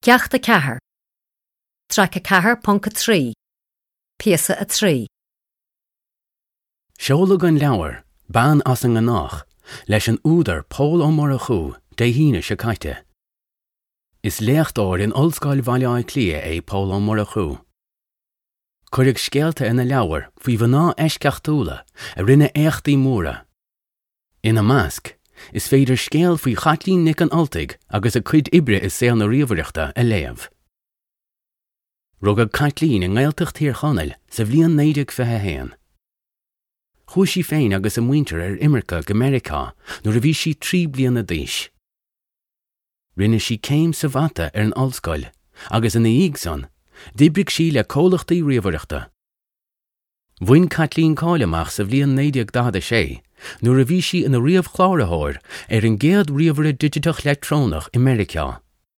Ceacht 4, Traic 4.3, Píosa 3. Seoladh an leabhar, Bean as an nGnách, leis an údar Pól Ó Murchú Dé hAoine seo caite. Is léachtóir in Ollscoil Bhaile Átha Cliath é Pól Ó Murchú. Cuireadh scéalta ina leabhar faoi mhná eisceachtúla a rinne éachtaí móra. Ina measc, is féidir scéal faoi Chaitlín Nic an Ultaigh agus a cuid oibre i saol na ríomhaireachta a léamh. Rugadh Caitlín i nGaeltacht Thír Chonaill sa bhliain 1921. Chuaigh sí féin agus a muintir ar imirce go Meiriceá nuair a bhí sí 3 bliana d'aois. Rinne sí céim sa mhata ar an ollscoil agus ina dhiaidh san, d'oibrigh sí le comhlachtaí ríomhaireachta. Bhain Caitlín cáil amach sa bhliain 1946 nuair a bhí sí ina ríomhchláraitheoir ar an gcéad ríomhaire digiteach leictreonach i Meiriceá.